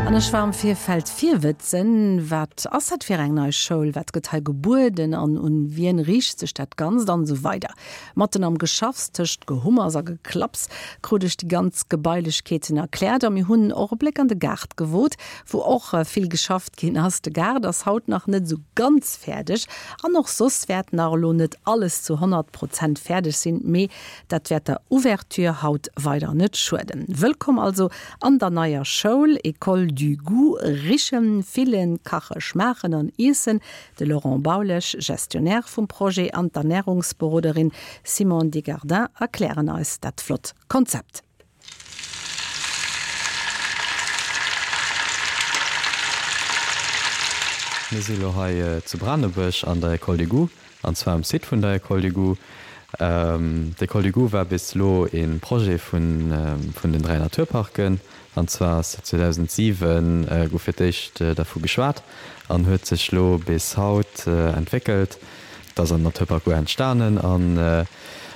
An ech war am Virfeld virwëtzen, Wat ass dat fir eng nei Schoul, wat gëtt hei gebueden an un wien riicht sech dat Ganzt an esou weider. Matten am Geschaffs, tëscht Gehummers a Geklapps, krut ech déi ganz Gebailechkeeten erkläert a mir hunn och e Bléck an de Gaart gewot, wou och vill geschafft ginn ass. De Gaart ass haut nach net esou ganz fäerdeg an och soss wäert nach elo net alles zu 100 Prozent fäerdeg sinn, mee Dat wäert der Ouverture haut weider net schueden. Wëllkomm also an der neier Schoul, École du Goût. Richen, fillen, kache, schmaachen an iessen. De Laurent Baulesch, Gestionnaire vum Projet, an d'Ernärungsberoderin Simone Degardin erklären eis dat flott Konzept. Mir si lo hei zu Branebuerg an der École du Goût, an zwar um Site vun der École du Goût. D'École du Goût war bis elo e Projet vun den 3 Naturparken, an zwar ass 2007 gouf fir d'éischt dervu geschwat an huet sech lo bis haut entwéckelt. Et ass am Naturpark Our entstanen an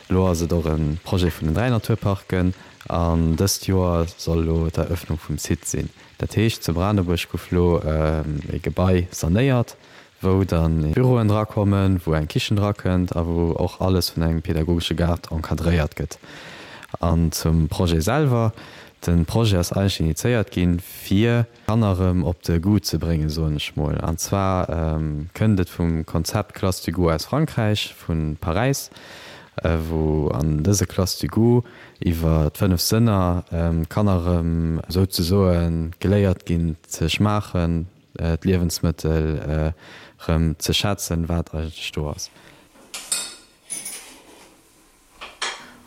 elo ass et och e Projet vun den 3 Naturparken. An dëst Joer soll elo d'Eröffnung vum Site sinn. Dat heescht, zu Branebuerg gouf elo e Gebai sanéiert, wou dann Büroen drakommen, wou eng Kichen drakënnt a wou och alles vun engem pedagogesche Gaart encadréiert gëtt. An zum Projet selwer, De Projet ass eigentlech initiéiert ginn, fir Kanner erëm op de Goût ze bréngen, soen ech mol. An zwar kënnt et vum Konzept Classe du goût aus Frankräich, vu Paräis, wou an dëse Classe du goût iwwer d'fënnef Sënner d'Kanner erëm souzesoe geléiert ginn ze schmaachen, d'Liewensmëttel erëm ze schätzen, wat eigentlech do ass.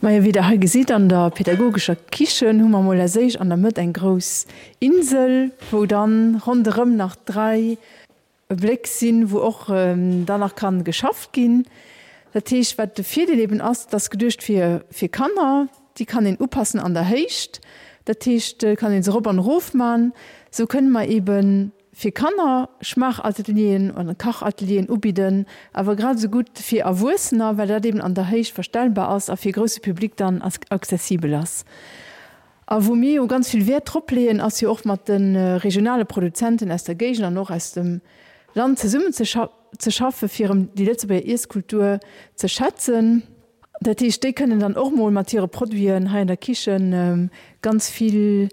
Majo, wéi der hei gesitt, an der pädagogescher Kichen hu mer mol als éischt an der Mëtt eng grouss Insel, wou dann ronderëm nach 3 Bléck sinn, wou och dann nach kann geschafft ginn. Dat heescht, wat de Virdeel eben ass, et ass geduecht fir fir Kanner, déi kann een upassen an der Héicht. Dat heescht, kann een se erop an erof man. Sou kënne mer eben fir Kanner Schmaachatelieren oder Kachatelieren ubidden, awer grad esou gutt fir Erwuessener, well dat eben an der Héicht verstellbar ass a fir e grousse Public dann accessibel ass. A wou mir jo ganz vill Wäert drop leeën, ass jo och mat de regionale Produzenten aus der Géigend an och aus dem Land zesummen ze schaffen, fir erëm déi Lëtzebuerger Iesskultur ze schätzen. Dat heescht, déi kënnen dann och mol mat hire Produiten hei an der Kichen ganz vill,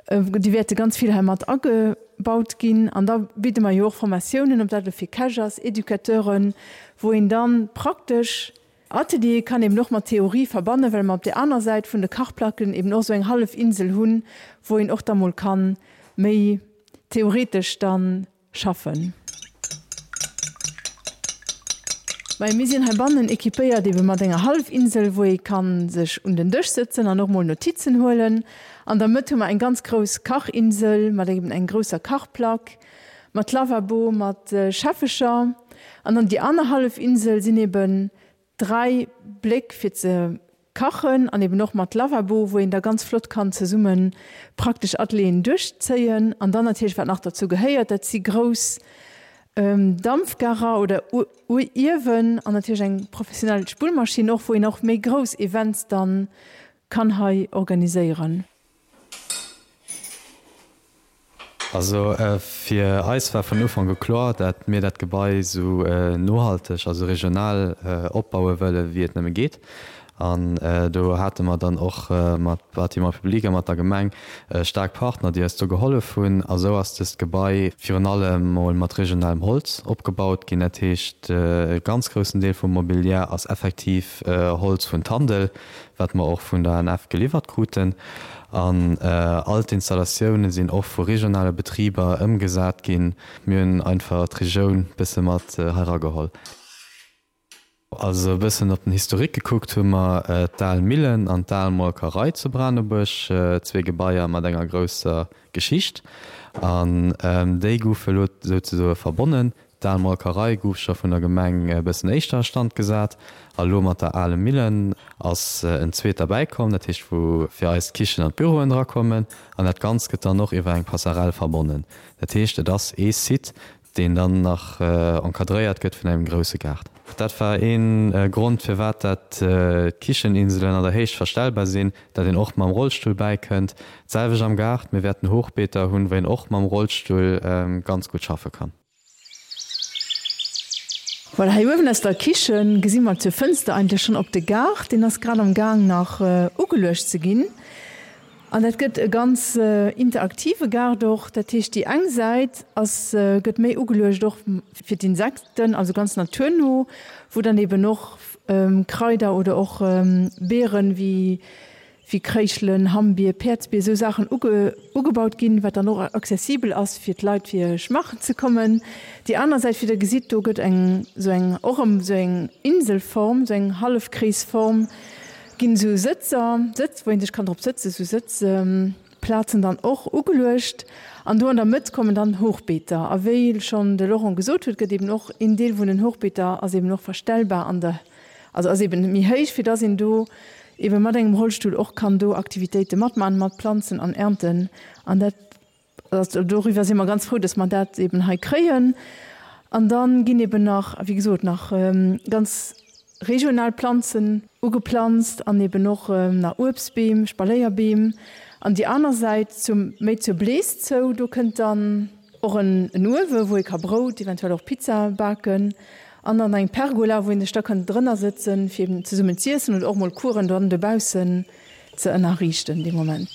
déi wäerte ganz vill hei mat agebaut ginn. An da bidde mer jo och Formatiounen, ob dat elo fir Käch ass, Educateuren, wou een dann praktesch Ateliere kann eben och mat Theorie verbannen, well mer op där aner Säit vun de Kachplacken eben och esou eng hallef Insel hunn, wou een och da mol ka méi theoretesch dann Schaffen. Majo, mir sinn heibannen equipéiert ebe mat enger Hallefinsel, wou ee kann sech un den Dësch sëtzen an och mol Notizen huelen. An der Mëtt hu mer eng ganz grouss Kachinsel mat eben eng grousser Kachplack, mat Lavabo, mat Schäffecher. An dann déi aner Hallefinsel sinn eben 3 Bléck fir ze kachen an eben och mat Lavabo, wou een da ganz flott kann zesumme praktesch Atelieren duerchzéien. An dann natierlech, wat nach derzou gehéiert, dat si grouss Dampfgarer oder Uewen an natierlech eng professionell Spullmaschinn och, wou een och méi grouss Events dann kann hei organiséieren. Also fir eis war vun Ufank u kloer, dat mir dat Gebai esou nohalteg a sou regional opbaue wëlle wéi et nëmme geet. An do hate mer dann och mat Bâtiments publics a mat der Gemeng staark Partner, déi eis do gehollef hunn. A sou ass dëst Gebai virun allem mol mat regionalem Holz opgebaut ginn. Dat heescht, e ganz groussen Deel vum Mobiliar ass effektiv Holz vun Tandel, wat mer och vun der ANF geliwwert kruten. An all d'Installatioune sinn och vu regionale Betriber ëmgesat ginn. Mir hunn einfach d'Regioun bësse mat hei erageholl. Also e bëssen op den Historique gekuckt hu mer d'Al Millen an d'Al Molkerei zu Branebuerg, zwee Gebaier mat enger grousser Geschicht. An déi goufe elo souzesoe verbonnen. D'al Molkerei gouf scho vun der Gemeng e bëssen éischter a Stand gesat a lo mat der Ale Millen ass en zweet derbäi komm, dat heescht wou fir eis d'Kichen an d'Büroen drakommen an dat Ganzt gëtt dann och iwwer eng Passerelle verbonnen. Dat heescht et ass ee Site, Deen dann nach encadréiert gëtt vun engem grousse Gaart. Dat war ee Grond firwat dat d'Kicheninselen an der Héicht verstellbar sinn, dat een och mam Rollstull bäikënnt. D'selwecht am Gaart, mir wäerten Hochbeeter hunn, wou een och mam Rollstull ganz gutt schaffe kann. Voilà, hei uewen aus der Kichen gesi mer zur Fënster eigentlech schonn op de Gaart. Deen ass grad am Gaang nach ugeluecht ze ginn. An dat gëtt e ganz interaktive Gaart och. Dat heescht, déi eng Säit ass, gëtt méi ugeluecht och fir d'Insekten, also ganz naturno, wou dann eben och Kraider oder och Beeren wéi wéi Kréischelen, Hammbier, Päerdsbier, esou Saachen ugebaut ginn, wat dann och accessibel ass fir d'Leit fir schmaachen ze kommen. Déi aner Säit, wéi Der gesitt, do gëtt eng esou eng och erëm esou eng Inselform, esou eng Hallefkreesform, Ginn esou Sëtzer, Sëtz, wou een sech kann drop sëtzen, esou Sëtzplazen dann och ugeluecht. An do an der Mëtt kommen dann Hochbeeter. A wéi schonn de Laurent gesot huet, gëtt eben och een Deel vun den Hochbeeter ass eben och verstellbar an der, also ass eben méi héich, fir dass een do eben mat engem Rollstull och kann do Aktivitéite matmachen, mat planzen an ernten. An dat Also doriwwer si mer ganz frou, dass mer dat eben hei kréien. An da ginn eben nach, wéi gesot, nach ganz regional Planzen ugeplanzt an eben och nach Uebstbeem, Spaléierbeem. An déi aner Säit, zum, méi zur Blees zou, do kënnt dann och en Uewe wou ee ka Brout, eventuell och Pizza baken. An dann eng Pergola, wou een sech da kann drënner sëtzen, fir eben zesummen z'iessen oder och mol Coursen dann dobaussen ze ënnerriichten dee Moment.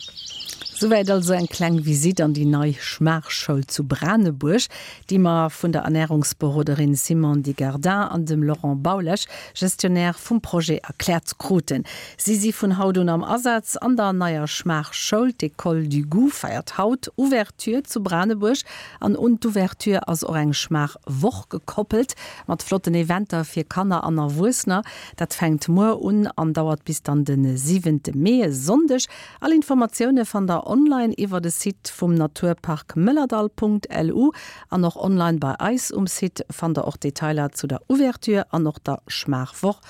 Souwäit also eng kleng Visitt an déi nei Schmaachschoul zu Branebuerg, déi mer vun der Ernärungsberoderin Simone Digardin an dem Laurent Baulesch, Gestionnaire vum Projet, erkläert kruten. Si si vun haut un am Asaz an der neier Schmaachschoul. D'École du Goût feiert haut Ouverture zu Branebuerg an un d'Ouverture ass och eng Schmaachwoch gekoppelt mat flotten Eventer fir Kanner an Erwuessener. Dat fänkt muer un an dauert bis dann de siwente Mee, e Sonndeg. All Informatioune fannt der online iwwer de Site vum Naturpark Mëllerdall.lu an och online bei eis um Site fannt der och Detailer zu der Ouverture an och der Schmaachwoch.